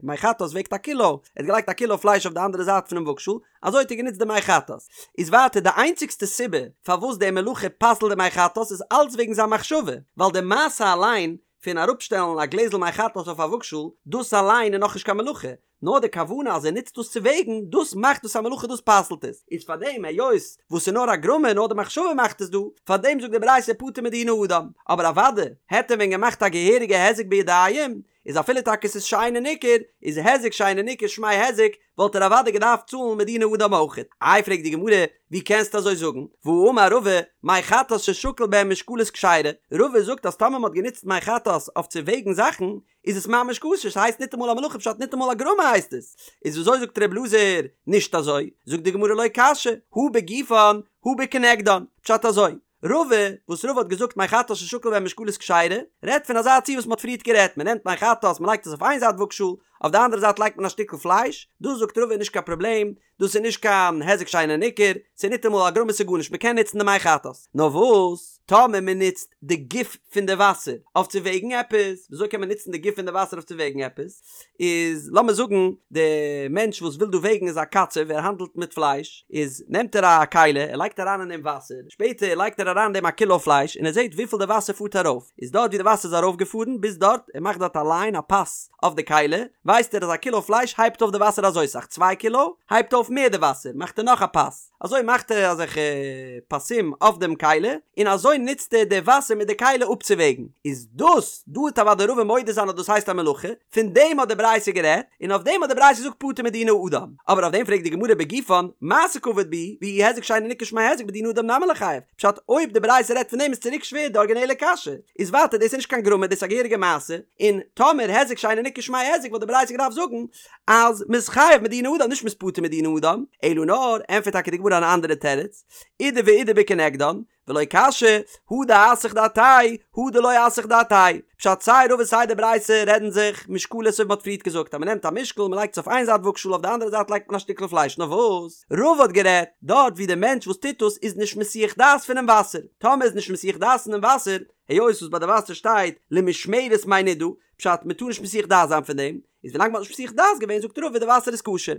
מי חטאת וועגט א קילא, ער האט געלייגט א קילא פלייש אויף די אנדערע זייט פונעם וואגשאל, אזוי האט ער גענוצט די מי חטאת. איז ווייטער די איינציגסטע סיבה פארוואס די מלאכה פסל'ט די מי חטאת איז אלץ וועגן זיין מחשבה, ווייל די מעשה אליין פון אראפשטעלן א גלעזל מי חטאת אויף א וואגשאל, דאס אליין איז נאכנישט קיין מלאכה, נאר די כוונה אז ער נוצט דאס צו וועגן, דאס מאכט דאס א מלאכה דאס פסל'ט עס, איז פאר דעם היות וואס ס'איז נאר א גרמא נאר די מחשבה מאכט עס דא, פאר דעם זאגט די ברייתא פטור מדיני אדם, אבער אוודאי העט ער ווען געמאכט א געהעריגע היזק בידיים, איז אפילו טאקע ס'איז שאינו ניכר, איז היזק שאינו ניכר שמיה היזק, וואלט ער אוודאי געדארפט צאלן מדיני אדם אויכעט. איי פרעגט די גמרא, ווי קענסטו אזוי זאגן? והאמר רבא, מי חטאת ששקל בהן משקלות כשרה, רבא זאגט אז טאמער מ'האט גענוצט מי חטאת אויף צו וועגן זאכן, איז עס ממש כשר, ס'הייסט ניטאמאל א מלאכה פשט ניטאמאל א גרמא הייסט עס, איז וויאזוי זאגט ר' אלעזר נישט אזוי, זאגט די גמרא לא קשיא, הא בגופן הא בכנגדן, פשט אזוי, רבא, וואס רבא האט געזאגט מי חטאת ששקל בהן משקלות כשרה, רעדט פון אזא ציור וואס מ'האט פריערט גערעדט, מ'נעמט מי חטאת מ'לייגט עס אויף איין זייט וואגשאל, אויף די אנדערע זייט לייגט מען א שטיקל פלייש, דאס זאגט רבא איז נישט קיין פראבלעם, דאס איז נישט קיין היזק שאינו ניכר, ס'איז ניטאמאל א גרמא ס'איז גארנישט, מ'קען נוצן די מי חטאת. נאר וואס, טאמער מ'נוצט די גוף פון די וואסער אויף צו וועגן עפעס, וויאזוי קען מען נוצן די גוף פון די וואסער אויף צו וועגן עפעס? איז לאמיר זאגן די מענטש וואס וויל דא וועגן איז א קצב, ער האנדלט מיט פלייש, איז נעמט ער א כלי, ער לייגט אריין אין דעם וואסער, שפעטער לייגט ער אריין אין דעם א קילא פלייש און ער זעט וויפיל די וואסער פארט ארויף, איז דארט ווי די וואסער איז ארויפגעפארן ביז דארט, ער מאכט דארט א ליין, א פאס, אויף די כלי, ווייסט ער אז א קילא פלייש הייבט אויף די וואסער אזוי סאך, צוויי קילא הייבט אויף מער די וואסער, מאכט ער נאך א פאס, אזוי מאכט ער אזעלכע פסים אויף דעם כלי, און אזוי נוצט ער די וואסער מיט די כלי אפצווועגן, איז דאס, דא וועט אוודאי רבא מודה זיין אז דאס הייסט א מלאכה, פון דעם האט די ברייתא גערעדט, און אויף דעם האט די ברייתא געזאגט פטור מדיני אדם, אבער אויף דעם פרעגט די גמרא בגופן, מעשה קא עביד בהו, ואי היזק שאינו ניכר שמיה היזק בדיני אדם נמי ליחייב, פשט אויב די ברייתא רעדט פון דעם איז צוריק שווער די ארגינעלע קשיא, איז ווייטער דאס איז נישט קיין גרמא דאס איז א געהעריגע מעשה, און טאמער היזק שאינו ניכר שמיה היזק וואלט די ברייתא געדארפט זאגן אז מ'איז חייב מדיני אדם נישט מ'איז פטור מדיני אדם, אלא נאר ענטפערט טאקע די גמרא אן אנדערע תירוץ, אידי ואידי בכנגדן, ולא קשיא, הא דאסח דעתיה, הא דלא אסח דעתיה. פשט סיי רבא סיי די ברייתא רעדן זיך משקלות אזוי ווי מ'האט פריערט געזאגט אז מ'נעמט א משקל מ'לייגט עס אויף איין זייט וואגשאל אויף די אנדערע זייט לייגט מען א שטיקל פלייש נאר וואס רבא האט גערעדט דארט ווי די מענטש וואס טוט דאס איז נישט מסיח דעת פונעם וואסער טאמער איז נישט מסיח דעת פונעם וואסער היות וואס ביי די וואסער שטייט למשמרת מי נידה פשט מ'טאר נישט מסיח דעת זיין פון דעם איז ווילאנג מ'האט נישט מסיח דעת געווען זאגט רבא די וואסער איז כשר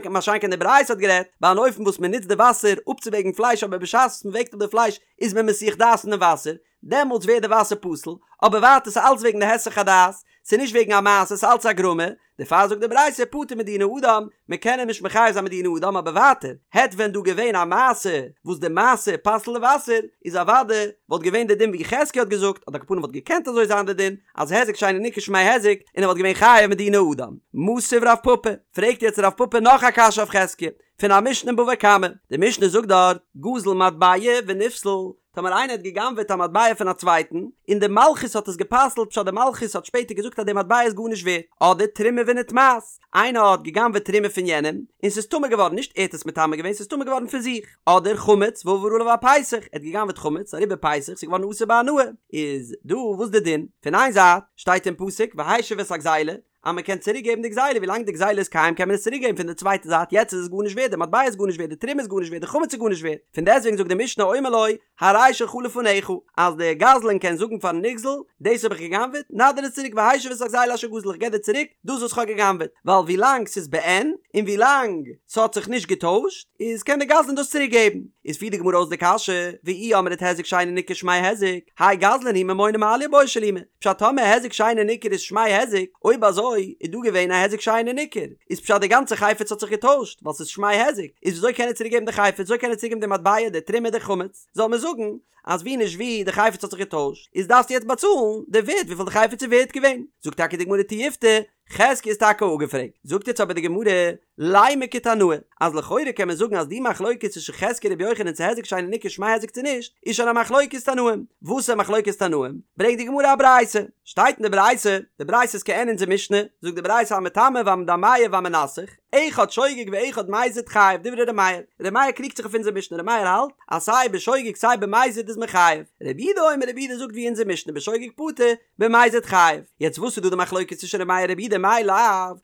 מה שאין כן די ברייתא האט גערעדט ביי אן אופן וואס מ'נוצט די וואסער אפצווועגן פלייש אבער בשעת וואס מ'וועגט אפ די פלייש איז מען מסיח דעת פונעם וואסער דעמאלטס ווערט די וואסער פסול, אבער ווייטער ס'איז אלץ וועגן די היסח הדעת, ס'איז נישט וועגן א מעשה ס'איז אלץ א גרמא, דערפאר זאגט די ברייתא פטור מדיני אדם, מען קען אים נישט מחייב זיין מדיני אדם אבער ווייטער, העט ווען דא געווען א מעשה וואס די מעשה פסל'ט די וואסער, איז אוודאי וואלט געווען די דין ווי חזקיה האט געזאגט, אדער על כל פנים וואלט געקענט אזוי זיין די דין, אז היזק שאינו ניכר שמיה היזק, און ער וואלט געווען חייב מדיני אדם. מתיב רב פפא, פרעגט יעצט רב פפא נאך א קשיא אויף חזקיה, פון א משנה אין בבא קמא, די משנה זאגט דארט, גזל מטבע ונפסל, טאמער איינער האט גע'גנב'עט א מטבע פון א צווייטן, און די מלכות האט עס גע'פסל'ט פשט די מלכות האט שפעטער געזאגט אז די מטבע איז גארנישט ווערט, אדער תרומה ונטמאת, איינער האט גע'גנב'עט תרומה פון יענעם, און ס'איז טמא געווארן, נישט ער האט עס מטמא געווען, ס'איז טמא געווארן פון זיך, אדער חמץ ועבר עליו הפסח, ער האט גע'גנב'עט חמץ, אריבער פסח, ס'איז געווארן אסור בהנאה, איז דא וואס די דין? פון איין זייט שטייט אין פסוק והשיב את הגזילה, אז מען קען צוריק געבן די גזילה ווילאנג די גזילה איז קיים קען מען עס צוריק געבן פון די צווייטע זייט יעצט איז עס גארנישט ווערט די מטבע איז גארנישט ווערט די תרומה איז גארנישט ווערט די חמץ איז גארנישט ווערט פון דעסטוועגן זאגט די משנה אומר לו הרי שלך לפניך אז דער גזלן קען זאגן פארן נגזל דאס האב איך גע'גנב'עט נא דיר עס צוריק והשיב את הגזילה אשר גזל איך געב דיר צוריק דאס וואס איך האב גע'גנב'עט ווייל ווילאנג ס'איז בעין און ווילאנג ס'האט זיך נישט געטוישט איז קען דער גזלן דאס צוריק געבן איז פירט די גמרא אויס די קשיא ואי אמרת היזק שאינו ניכר שמיה היזק האי גזלן הוא ממונא מעליא בעי שלומי פשט טאמער היזק שאינו ניכר איז שמיה היזק, אויב אזוי איז דא געווען א היזק שאינו ניכר, איז פשט די גאנצע חפץ האט זיך געטוישט ווייל ס'איז שמיה היזק, איז וויאזוי קען ער צוריק געבן די חפץ, וויאזוי קען ער צוריק געבן די מטבע, די תרומה, די חמץ, זאל מען זאגן אז ווי נישט ווי די חפץ האט זיך געטוישט, איז דארפסטו יעצט באצאלן די ווערט וויפיל די חפץ איז ווערט געווען, זאגט טאקע די גמרא תיובתא, חזקיה איז טאקע אפגעפרעגט, זאגט יעצט אבער די גמרא, לימא כתנאי, אז לכאורה קען מען זאגן אז די מחלוקת צווישן חזקיה און רבי יוחנן צו היזק שאינו ניכר שמיה היזק צו נישט, איז שוין א מחלוקת תנאים. וואס איז מחלוקת תנאים? ברענגט די גמרא א ברייתא. שטייט אין די ברייתא, די ברייתא איז כעין אונזער משנה, זאגט די ברייתא המטמא והמדמע והמנסך, אחד שוגג ואחד מזיד חייב, דברי ר' מאיר. ר' מאיר קריגט זיך אויף אונזער משנה, ר' מאיר האלט אז סיי בשוגג סיי במזיד איז מען חייב. רבי יהודה אומר רבי יהודה זאגט ווי אונזער משנה בשוגג פטור, במזיד חייב. יעצט וואס איז דא די מחלוקת צווישן ר' מאיר און רבי יהודה מאי לאו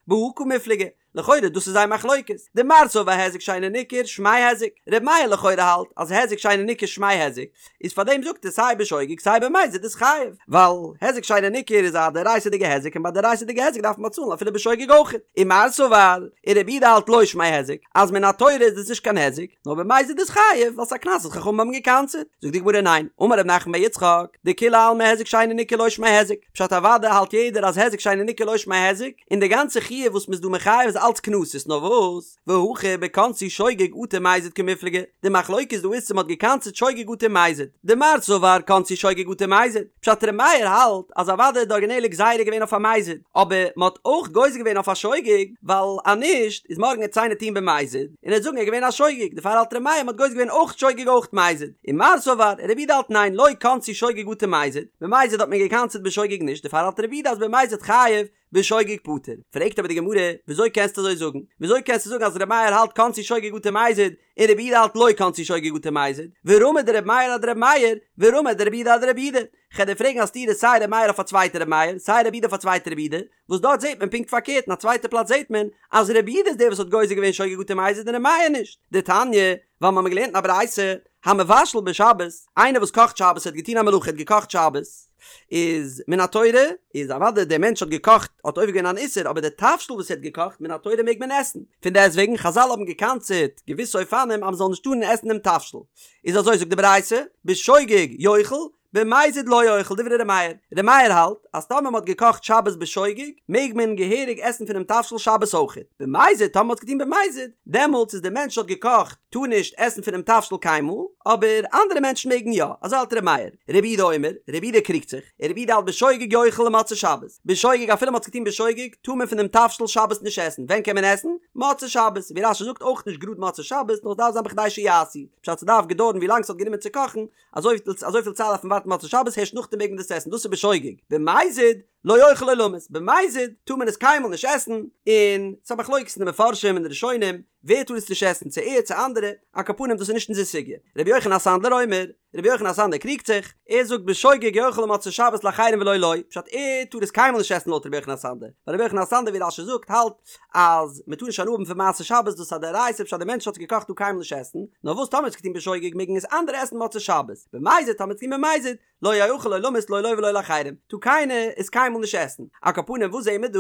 בהא קמיפלגי? לכאורה דאס איז זייער מחלוקת. דמר סבר היזק שאינו ניכר שמיה היזק. ר' מאיר לכאורה האלט אז היזק שאינו ניכר שמיה היזק, איז פארדעם זאגט ער סיי בשוגג סיי במזיד איז חייב, ווייל היזק שאינו ניכר איז א דאורייתא'דיגע היזק און ביי דאורייתא'דיגע היזק דארף מען באצאלן אפילו בשוגג אויך. ומר סבר, און רבי יהודה האלט לא שמיה היזק, אז מן התורה איז דאס נישט קיין היזק, נאר במזיד איז חייב, ווייל ס'איז א קנס וואס חכמים האבן גע'קנס'עט. זאגט די גמרא ניין, אמר רב נחמן בר יצחק, דכולי עלמא היזק שאינו ניכר לא שמיה היזק, פשט אוודאי האלט יעדער אז היזק שאינו ניכר לא שמיה היזק, און די גאנצע חיוב וואס מ'איז דא מחייב איז אלץ קנסות, נאר וואס, והכא בקנסו שוגג אטו מזיד קמיפלגי, די מחלוקת דא איז צו מ'האט געקנס'ט שוגג אטו מזיד, דמר סבר קנסו שוגג אטו מזיד, פשט ר' מאיר האלט אז אוודאי איז די ארגינעלע גזירה געווען אויף א מזיד, אבער מ'האט אויך גוזר געווען אויף א שוגג, ווייל אז נישט איז מארגן עט עס איינער טוהן במזיד, און ער וועט זאגן ער איז געווען א שוגג, דערפאר האלט ר' מאיר מ'האט גוזר געווען אויך שוגג אויך מזיד, ומר סבר, רבי יהודה האלט ניין לא קנסו שוגג אטו מזיד, במזיד האט מען געקנס'ט בשוגג נישט, דערפאר האלט רבי יהודה אז במזיד חייב. בשוגג פטור. פרעגט אבער די גמרא, וויאזוי קענסטו אזוי זאגן? וויאזוי קענסטו זאגן אז ר' מאיר האלט קנסו שוגג אטו מזיד, און רבי יהודה האלט לא קנסו שוגג אטו מזיד? ורמי דר' מאיר אדר' מאיר, ורמי דרבי יהודה אדרבי יהודה. כ'על דיר פרעגן א סתירה סיי ר' מאיר אויף א צווייטע ר' מאיר, סיי רבי יהודה אויף א צווייטע רבי יהודה, וואס דארט זעט מען פונקט פארקערט, אין א צווייטע פלאץ זעט מען אז רבי יהודה איז דער וואס האט גוזר געווען שוגג אטו מזיד און ר' מאיר נישט. דתניא, ווייל מ'האמיר געלערנט אין א ברייתא, המבשל בשבת, איינער וואס קאכט שבת האט געטון א מלאכה האט געקאכט שבת, איז מן התורה, איז אוודאי דער מענטש האט געקאכט האט עובר געווען אן איסור אבער די תבשיל וואס ער האט געקאכט מן התורה מעג מען עסן, פון דעסט וועגן חזל האבן געקנס'עט געוויסע אופנים אז מ'זאל נישט טארן עסן דעם תבשיל, איז אזוי זאגט די ברייתא, בשוגג יאכל, במזיד לא יאכל דברי ר' מאיר, ר' מאיר האלט אז טאמער מען האט געקאכט שבת בשוגג מעג מען געהעריג עסן פונעם תבשיל שבת אויכעט, במזיד טאמער מען האט עס געטון במזיד דעמאלטס איז דער מענטש האט געקאכט טאר נישט עסן פונעם תבשיל קיינמאל, אבער אנדערע מענטשן מעגן יא, אזוי האלט ר' מאיר, רבי יהודה אומר, רבי יהודה קריגט זיך, און רבי יהודה האלט בשוגג יאכל למוצאי שבת, בשוגג אפילו מען האט עס געטון בשוגג טאר מען פונעם תבשיל שבת נישט עסן, ווען קען מען עסן? מוצאי שבת, ווי רש"י זאגט אויך נישט גראד מוצאי שבת נאר עס דארף זיין בכדי שיעשו, פשט ס'דארף געדויערן ווי לאנג ס'האט גענומען צו קאכן, אזויפיל אזויפיל צייט דארף מען ווארטן מוצאי שבת הערשט נאכדעם מעג מען דאס עסן דאס איז בשוגג במזיד לא יאכל עולמית במזיד טאר מען עס קיינמאל נישט עסן און ס'איז א מחלוקת אין די מפרשים און די ראשונים ווער טאר עס נישט עסן צו ער צו אנדערע על כל פנים דאס איז נישט אונזער סוגיא רבי יוחנן הסנדלר אומר רבי יוחנן הסנדלר קריגט זיך ער זאגט בשוגג יאכל למוצאי שבת לאחרים ולא לו פשט ער טאר עס קיינמאל נישט עסן לויט רבי יוחנן הסנדלר ווייל רבי יוחנן הסנדלר ווי רש"י זאגט האלט אז מען טאר נישט הנאה האבן פון מעשה שבת דאס איז א דאורייתא פשט אז דער מענטש האט עס געקאכט טאר קיינמאל נישט עסן, נאר וואס טאמער האט עס געטון בשוגג מעגן עס אנדערע עסן מוצאי שבת, במזיד טאמער האט עס געטון במזיד, לא יאכל עולמית לא לו ולא לאחרים, טאר קיינער עס קיינמאל נישט עסן. על כל פנים וואס זעהן מיר דא?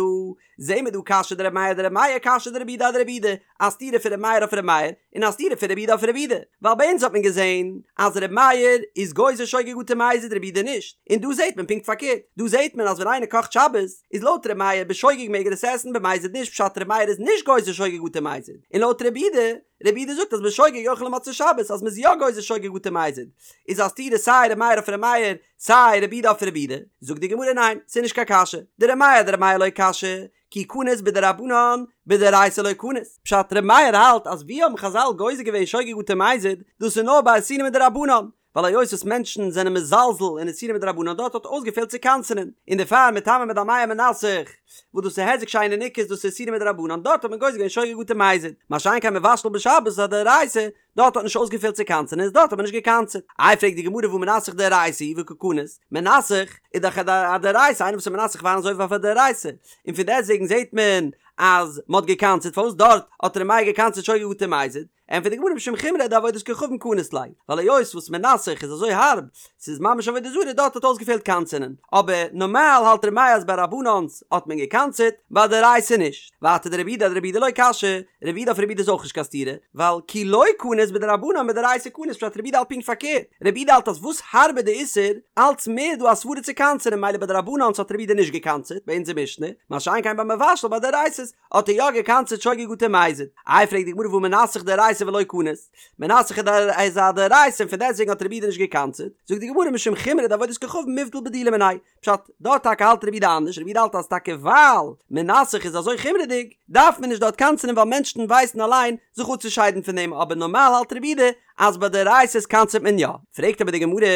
זעהן מיר דא קשיא דרבי מאיר אדרבי מאיר קשיא דרבי יהודה אדרבי יהודה, א סתירה פון רבי מאיר אויף רבי מאיר, און א סתירה פון רבי יהודה אויף רבי יהודה, ווייל ביי אונז האט מען געזעהן אז רבי מאיר איז גוזר שוגג אטו מזיד רבי יהודה נישט, און דא זעהט מען פונקט פארקערט, דא זעהט מען אז ווען איינער קאכט שבת, איז לויט ר' מאיר בשוגג מעג ער עס עסן במזיד נישט פשט ר' מאיר איז נישט גוזר שוגג אטו מזיד און לויט רבי יהודה רבי יהודה זאגט אז בשוגג יאכל למוצאי שבת אז מ'איז יא גוזר שוגג אטו מזיד איז א סתירה סיי ר' מאיר אויף ר' מאיר סיי רבי יהודה אויף רבי יהודה זאגט די גמרא ניין ס'איז נישט קיין קשיא דר' מאיר אדר' מאיר לא קשיא כי קניס בדרבנן בדאורייתא לא קניס פשט ר' מאיר האלט אז ווי האבן חזל גוזר געווען שוגג אטו מזיד דאס איז נאר ביי איסורים מדרבנן ווייל היות וואס מענטשן זענען מזלזל אין איסורים מדרבנן דארט האט אויסגעפעלט צו קנס'ענען, און דערפאר מטמא מדמע מנסך, וואס דאס איז היזק שאינו ניכר דאס איז איסורים מדרבנן דארט האט מען גוזר געווען שוגג אטו מזיד, מה שאין כן מבשל בשבת איז א דאורייתא, דארט האט נישט אויסגעפעלט צו קנס'ענען איז דארט האט מען נישט געקנס'עט. איי פרעגט די גמרא והא מנסך דאורייתא הוא וקא קניס, מנסך איז דאך א דאורייתא איינער וואס איז מנסך וויין איז עובר אויף א דאורייתא, און פון דעסטוועגן זעט מען אז מען האט געקנס'עט פארוואס דארט האט ר' מאיר געקנס'עט שוגג אטו מזיד? ענטפערט די גמרא משום חומרא דעבודת כוכבים קניס ליה, ווייל היות וואס מנסך איז אזוי הארב, ס'איז ממש עבודה זרה דארט האט אויסגעפעלט קנס'ענען, אבער נארמאל האלט ר' מאיר אז ביי דרבנן'ס האט מען געקנס'עט, ביי דאורייתא נישט. ווייטער דרבי יהודה אדרבי יהודה לא קשיא, רבי יהודה אויף רבי יהודה איז אויך נישט קיין סתירה, ווייל כי לא קניס בדרבנן בדאורייתא קניס פשט רבי יהודה האלט פונקט פארקערט, רבי יהודה האלט אז וואס הארבער די איסור, אלץ מער דא א סברא צו קנס'ענען ממילא ביי דרבנן'ס האט רבי יהודה נישט געקנס'עט ביי אונזער משנה, מה שאין כן ביי מבשל ביי דאורייתא'ס האט ער יא געקנס'עט שוגג אטו מזיד. איי פרעגט די גמרא והא מנסך דאורייתא ולא קניס, מנסך איז א דאורייתא און פון דעסטוועגן האט רבי יהודה נישט געקנס'עט, זאגט די גמרא משום חומרא דעבודת כוכבים מיבדל בדולי מיניה, פשט, דארט טאקע האלט רבי יהודה אנדערש, רבי יהודה האלט אז טאקע ווייל מנסך איז אזוי חומרה'דיג, דארף מען נישט דארט קנס'ענען ווייל מענשטן ווייסן אליין זיך אפצושיידן פון דעם, אבער נארמאל האלט רבי יהודה אז ביי דאורייתא'ס קנס'עט מען יא. פרעגט אבער די גמרא,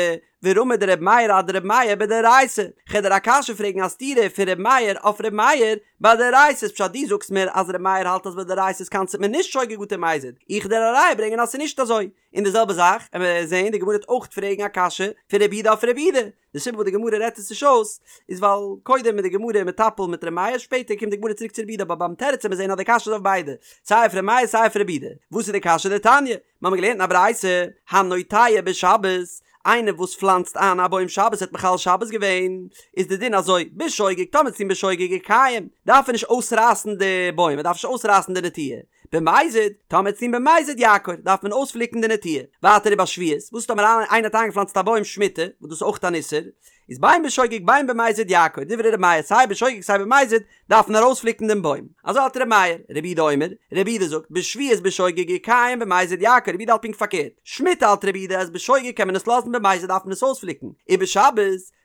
ורמי דרבי מאיר אדרבי מאיר בדאורייתא, כ'על דיר א קשיא פרעגן א סתירה פון ר' מאיר אויף ר' מאיר ביי דאורייתא'ס פשט דו זאגסט מיר אז ר' מאיר האלט אז ביי דאורייתא'ס קנס'עט מען נישט שוגג אטו מזיד, איך דיר א ראיה ברענגען אז ס'איז נישט אזוי, און די זעלבע זאך עמער זעהן די גמרא וועט אויך פרעגן א קשיא פון רבי יהודה אויף רבי יהודה, די סיבה וואס די גמרא רעדט עס נישט אויס איז ווייל קודם איז די גמרא מטפל מיט ר' מאיר שפעטער קומט די גמרא צוריק צו רבי יהודה אבער ביים תירוץ עמער זעהן אז די קשיא איז אויף ביידע סיי אויף ר' מאיר סיי אויף רבי יהודה, וואס איז די קשיא דתניא? מיר האבן געלערנט אין א ברייתא, הנוטע בשבת, איינער וואס פלאנצט איין א בוים שבת האט מחלל שבת געווען, איז די דין אזוי, בשוגג, טאמער ס'איז בשוגג יקיים, דארף ער נישט אויסרייסן די בוים, ער דארף נישט אויסרייסן די נטיעה, במזיד, טאמער ס'איז במזיד יעקור, דארף מען אויספליקן די נטיעה. ווייטער ובשביעית, וואס טאמער איינער האט איינגעפלאנצט א בוים שמיטה, וואס דאס איז אויך אן איסור, איז בין בשוגג בין במזיד יעקור, דברי ר' מאיר, סיי בשוגג סיי במזיד, דארף מען ארויספליקן דעם בוים. אזוי האלט ר' מאיר. רבי יהודה אומר, רבי יהודה זאגט, בשביעית בשוגג יקיים במזיד יעקור, רבי יהודה האלט פונקט פארקערט. שמיטה האלט רבי יהודה אז בשוגג קען מען עס לאזן במזיד דארף מען עס אויספליקן. ובשבת,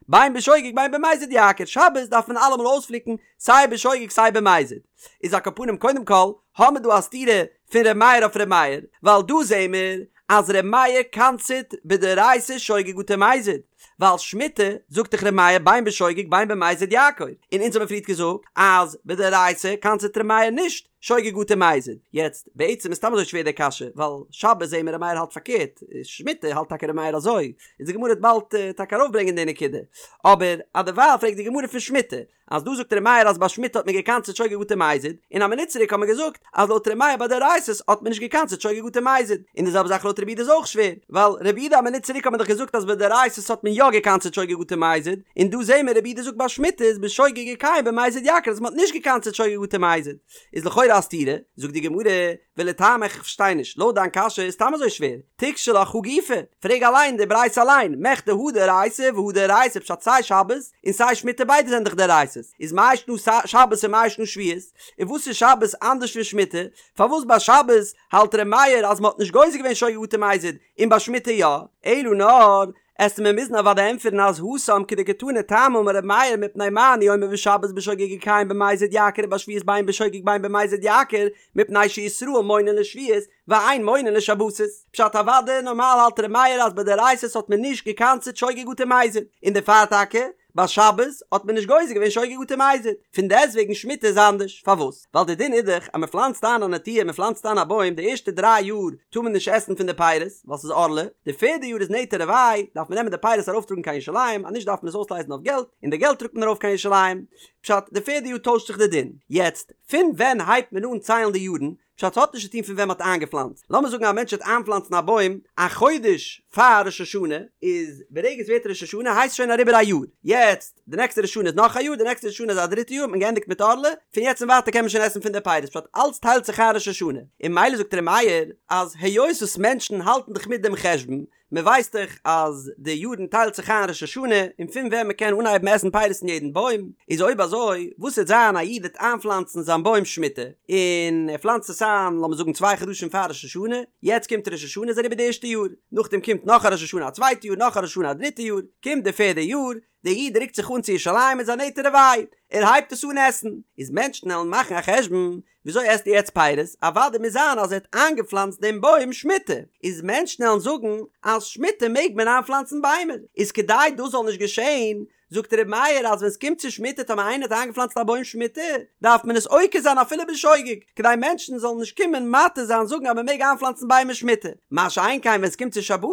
בין בשוגג בין במזיד יעקור, שבת דארף מען אלעמאל אויספליקן סיי בשוגג סיי במזיד. איז על כל פנים קודם כל האמיר דא א סתירה פון ר' מאיר אויף ר' מאיר, ווייל דא זעהן מיר אז ר' מאיר קנס'עט בדאורייתא שוגג אטו מזיד. ווייל שמיטה, זאגט דאך ר' מאיר בין בשוגג בין במזיד יעקור, און אונז האבן פריערט געזאגט אז בדאורייתא קנס'עט ר' מאיר נישט שוגג אטו מזיד, יעצט בעצם איז סתם אזוי שווער די קשיא, ווייל שבת זעהן מיר ר' מאיר האלט פארקערט, שמיטה האלט טאקע ר' מאיר אזוי, איז די גמרא וועט באלד טאקע ארויפברענגען די נקודה, אבער אדערווייל פרעגט די גמרא פון שמיטה, אז דא זאגט ר' מאיר אז ביי שמיטה האט מען געקנס'עט שוגג אטו מזיד, און א מינוט צוריק האט מען געזאגט אז לויט ר' מאיר ביי דאורייתא'ס האט מען נישט געקנס'עט שוגג אטו מזיד, און די זעלבע זאך לויט רבי יהודה איז אויך שווער, ווייל רבי יהודה א מינוט צוריק האט מען דאך געזאגט אז ביי דאורייתא'ס האט מען יא געקנס'עט שוגג אטו מזיד, און דא זעהן מיר רבי יהודה זאגט ביי שמיטה איז בשוגג יקיים במזיד יעקור אז מען האט נישט געקנס'עט שוגג אטו מזיד, איז לכאורה א סתירה, זאגט די גמרא, ולטעמיך איך פארשטיי נישט, לויט דיין קשיא איז סתם אזוי שווער, תיקשי לך הא גופא, פרעג אליין די ברייתא אליין, מכדי הא דאורייתא והא דאורייתא פשט סיי שבת און סיי שמיטה ביידע זענען דאך דאורייתא'ס, איז מאי שנא שבת און מאי שנא שביעית, און וואס איז שבת אנדערש פון שמיטה, פארוואס ביי שבת האלט ר' מאיר אז מען האט נישט גוזר געווען שוגג אטו מזיד און ביי שמיטה יא, אלא נאר עסטו מיר מוזן אוודאי ענטפערן אז התם כדקתני טעמא אמר ר' מאיר מפני מה אני אומר בשבת בשוגג יקיים במזיד יעקור ובשביעית בין בשוגג בין במזיד יעקור מפני שישראל מונין לשביעית ואין מונין לשבתות. פשט אוודאי נארמאל האלט ר' מאיר אז ביי דאורייתא'ס האט מען נישט געקנס'עט שוגג אטו מזיד און דערפאר טאקע ביי שבת האט מען נישט גוזר געווען שוגג אטו מזיד פון דעסטוועגן שמיטה איז אנדערש פארוואס ווייל די דין איז דאך אז מען פלאנצט איין א נטיעה מען פלאנצט איין א בוים די ערשטע דריי יאר טאר מען נישט עסן פון די פירות ווייל ס'איז ערלה, די פערדע יאר איז נטע רבעי דארף מען נעמען די פירות ארויפטראגן קיין ירושלים אז נישט דארף מען עס אויסלייזן אויף געלט און די געלט טראגט מען ארויף קיין ירושלים פשט די פערדע יאר טוישט זיך די דין יעצט פון ווען הייבט מען אן ציילן די יארן פשט ס'האט נישט צו טון פון ווען מ'האט איינגעפלאנצט. לאמיר זאגן א מענטש וועט איינפלאנצן א בוים א חודש פאר ראש השנה, איז ברגע ס'ווערט ראש השנה הייסט שוין אריבער א יאר. יעצט די נעקסטע ראש השנה איז נאך א יאר, די נעקסטע ראש השנה איז א דריטע יאר, האט מען געענדיגט מיט ערלה, פון יעצט און ווייטער קען מען שוין עסן פון די פירות, פשט אלץ טיילט זיך איין ראש השנה. און ממילא זאגט ר' מאיר אז היות וואס מענטשן האלטן דאך מיט דעם חשבון, מען ווייסט דאך אז די יארן טיילט זיך איין ראש השנה און פון ווען מען קען אנהייבן עסן פירות אין יעדן בוים, איז אויב אזוי וואס וועט זיין א איד וועט איינפלאנצן זיין בוים שמיטה און ער פלאנצט עס איין לאמיר זאגן צוויי חדשים פאר ראש השנה, יעצט קומט ראש השנה איז אריבער די ערשטע יאר, נאכדעם קומט נאך א ראש השנה א צווייטע יאר נאך א ראש השנה א דריטע יאר, קומט די פערדע יאר, דער איד רוקט זיך אן צו ירושלים מיט זיין נטע רבעי, ער הייבט עס אן עסן, איז מענטשן עלן מאכן א חשבון, וויאזוי עסט ער יעצט פירות, אוודאי מוז זיין אז ער האט איינגעפלאנצט דעם בוים שמיטה, איז מענטשן עלן זאגן אז שמיטה מעג מען איינפלאנצן ביימער, איז כדי דאס זאל נישט געשען, זאגט ר' מאיר אז ווען ס'קומט צו שמיטה טאמער איינער האט איינגעפלאנצט א בוים שמיטה, דארף מען עס עוקר זיין אפילו בשוגג, כדי מענטשן זאלן נישט קומען מתיר זיין זאגן אז מען מעג איינפלאנצן ביימער שמיטה, מה שאין כן ווען ס'קומט צו שבתות,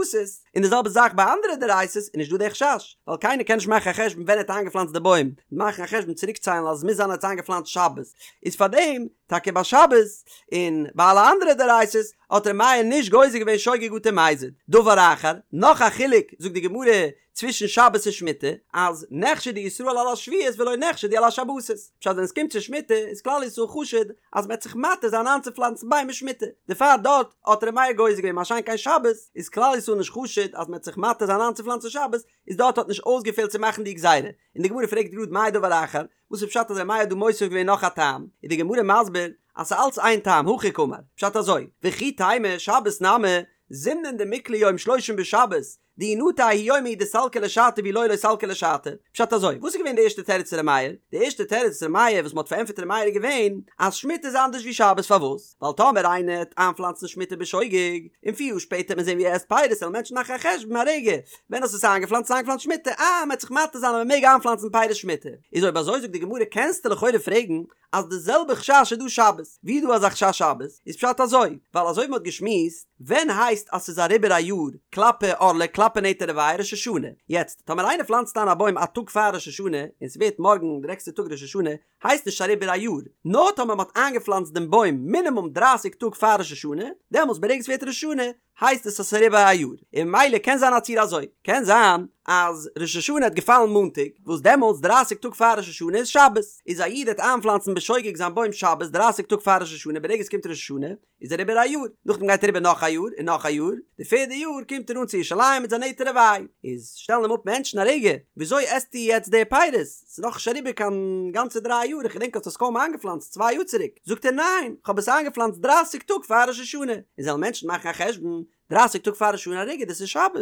און די זעלבע זאך ביי אנדערע דאורייתא'ס איז נישט דא די חשש, ווייל קיינער קען נישט מאכן א חשבון ווען ער האט איינגעפלאנצט די בוים, מאכן א חשבון צוריקציילן אז עס מוז זיין ער האט עס איינגעפלאנצט שבת, איז פארדעם טאקע ביי שבת און ביי אלע אנדערע דאורייתא'ס האט ר' מאיר נישט גוזר געווען שוגג אטו מזיד. דבר אחר, נאך א חילוק זאגט די גמרא צווישן שבת און שמיטה, אז נחשדו ישראל על השביעית ולא נחשדו על השבתות, פשט ווען עס קומט צו שמיטה איז כלל ישראל חשוד אז מען וועט זיך מתיר זיין איינצופלאנצן ביימער שמיטה, דערפאר דארט האט ר' מאיר גוזר געווען מה שאין כן שבת איז כלל ישראל נישט חשוד אז מען וועט זיך מתיר זיין איינצופלאנצן שבת, איז דארט האט נישט אויסגעפעלט צו מאכן די גזירה, און די גמרא פרעגט גראד מאי דבר אחר, וואס איז פשט אז ר' מאיר האט דא מוסיף געווען נאך א טעם, איז די גמרא מסביר אז ס'איז אלץ איין טעם, הכי קאמר, פשט אזוי, וכי תימא שבת נמי, זימנין דמיקלע יום שלושים בשבת, דאי נטר ההוא יומא הוא דסלקא לשעתיה ואי לא לא סלקא לשעתיה. פשט אזוי, וואס איז געווען די ערשטע תירוץ פון ר' מאיר? די ערשטע תירוץ פון ר' מאיר וואס מ'האט פארענטפערט ר' מאיר איז געווען אז שמיטה איז אנדערש ווי שבת פארוואס? ווייל טאמער איינער העט איינפלאנצן שמיטה בשוגג, און פיר יאר שפעטער העט מען זען ווי ער עסט פירות וועלן מענטשן מאכן א חשבון א רגע, ווען האסטו עס איינגעפלאנצט? איינגעפלאנצט שמיטה, אה מ'העט זיך מתיר זיין אז מ'מעג איינפלאנצן פירות שמיטה. איז אויב אזוי זאגט די גמרא קענסטו לכאורה פרעגן אז די זעלבע חשש איז דא שבת, ווי איז דא אזא חשש שבת? איז פשט אזוי, ווייל אזוי ווי מ'האט געשמועסט, ווען הייסט אז ס'איז אריבער א יאר כלפי ערלה כלפי נטע רבעי ראש השנה, יעצט טאמער איינער פלאנצט איין א בוים א טאג פאר ראש השנה און ס'ווערט מארגן די נעקסטע טאג ראש השנה, הייסט נישט אריבער א יאר, נאר טאמער מ'האט איינגעפלאנצט דעם בוים מינימום דרייסיג טאג פאר ראש השנה, דעמאלטס ברגע ס'ווערט ראש השנה הייסט עס אז ס'איז אריבער א יאר, און ממילא קען זיין א ציור אזוי, קען זיין אז ראש השנה האט געפאלן מאנטאג, וואס דעמאלטס דרייסיג טאג פאר ראש השנה איז שבת, איז א איד העט איינפלאנצן בשוגג זיין בוים שבת דרייסיג טאג פאר ראש השנה ברגע עס קומט ראש השנה איז אריבער א יאר, נאכדעם גייט אריבער נאך א יאר און נאך א יאר, די פערדע יאר קומט ער אן צו ירושלים מיט זיין נטע רבעי, איז שטעלן אים אפ מענטשן א רגע, וויאזוי עסטו יעצט די פירות? ס'איז נאך נישט אריבער קיין גאנצע דריי יאר, איך געדענק האסט עס קוים איינגעפלאנצט צוויי יאר צוריק, זאגט ער ניין, כ'האב עס איינגעפלאנצט דרייסיג טאג פאר ראש השנה, און זאלן מענטשן מאכן א חשבון, דרייסיג טאג פאר ראש השנה א רגע דאס איז שבת,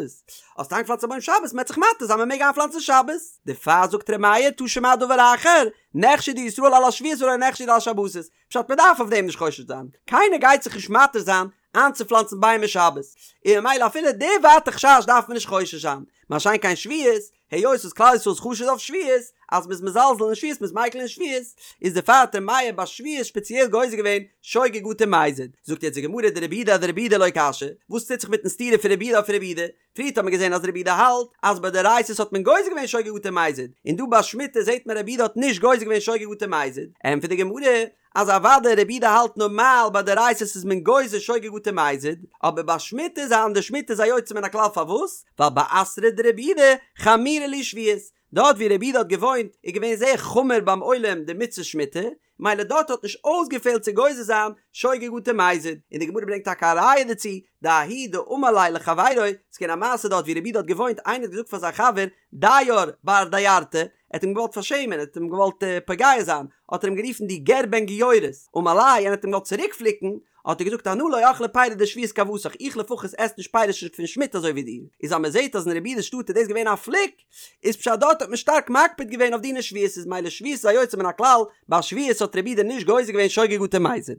האסט איינגעפלאנצט א בוים שבת, מ'עט זיך מתיר זיין מ'מעג איינפלאנצן שבת, דערפאר זאגט ר' מאיר תא שמע דבר אחר, נחשדו ישראל על השביעית ולא נחשדו על השבתות, פשט מ'דארף אויף דעם נישט חושש זיין, קיינער גייט זיך נישט מתיר זיין. איינצופלאנצן ביימער שבת, און ממילא אפילו די ווייטע חשש דארף מען נישט חושש זיין, מה שאין כן שביעית, היות וואס כלל ישראל איז חשוד אויף שביעית, אז מ'איז מזלזל אין שביעית מ'איז מיקל אין שביעית, איז דערפאר האט ר' מאיר ביי שביעית שפעציעל גוזר געווען שוגג אטו מזיד. זאגט יעצט די גמרא דרבי יהודה אדרבי יהודה לא קשיא, וואס טוט זיך מיטן סתירה פון רבי יהודה אויף רבי יהודה? פריערט האט מען געזען אז רבי יהודה האלט אז ביי דאורייתא'ס האט מען גוזר געווען שוגג אטו מזיד, און דא ביי שמיטה זעט מען רבי יהודה האט נישט גוזר געווען שוגג אטו מזיד, ענטפערט די גמרא אז אוודאי רבי יהודה האלט נארמאל ביי דאורייתא'ס איז מען גוזר שוגג אטו מזיד, אבער ביי שמיטה איז אנדערש שמיטה איז א יוצא מן הכלל פארוואס? ווייל באתרא דרבי יהודה חמירא להו שביעית, דארט ווי רבי יהודה האט געוואוינט איז געווען זייער חמור ביים עולם די מצות שמיטה, מילא דארט האט נישט אויסגעפעלט צו גוזר זיין שוגג אטו מזיד, און די גמרא ברענגט טאקע א ראיה דערצו, דההוא דאמר ליה לחבירו, ס'איז געווען א מעשה דארט ווי רבי יהודה האט געוואוינט, איינער האט געזאגט פאר זיין חבר דייר בר דיירתא, ער האט אים געוואלט פארשעמען, ער האט אים געוואלט פוגע זיין, האט ער אים גערופן דו גר בן גיורת, אמר ליה, און האט אים געוואלט צוריק פליקן, האט ער געזאגט אנא לא אכלי פירי דשביעית כוותך, איך לפחות עס נישט פירות פון שמיטה אזוי ווי דיר, איז אז מען זעט אז אין רבי יהודה'ס שטאט איז דאס געווען א פליק, איז פשט דארט האט מען שטארק מקפיד געווען אויף דיני שביעית איז מילא שביעית איז א יוצא מן הכלל, ביי שביעית האט רבי יהודה נישט גוזר געווען שוגג אטו מזיד.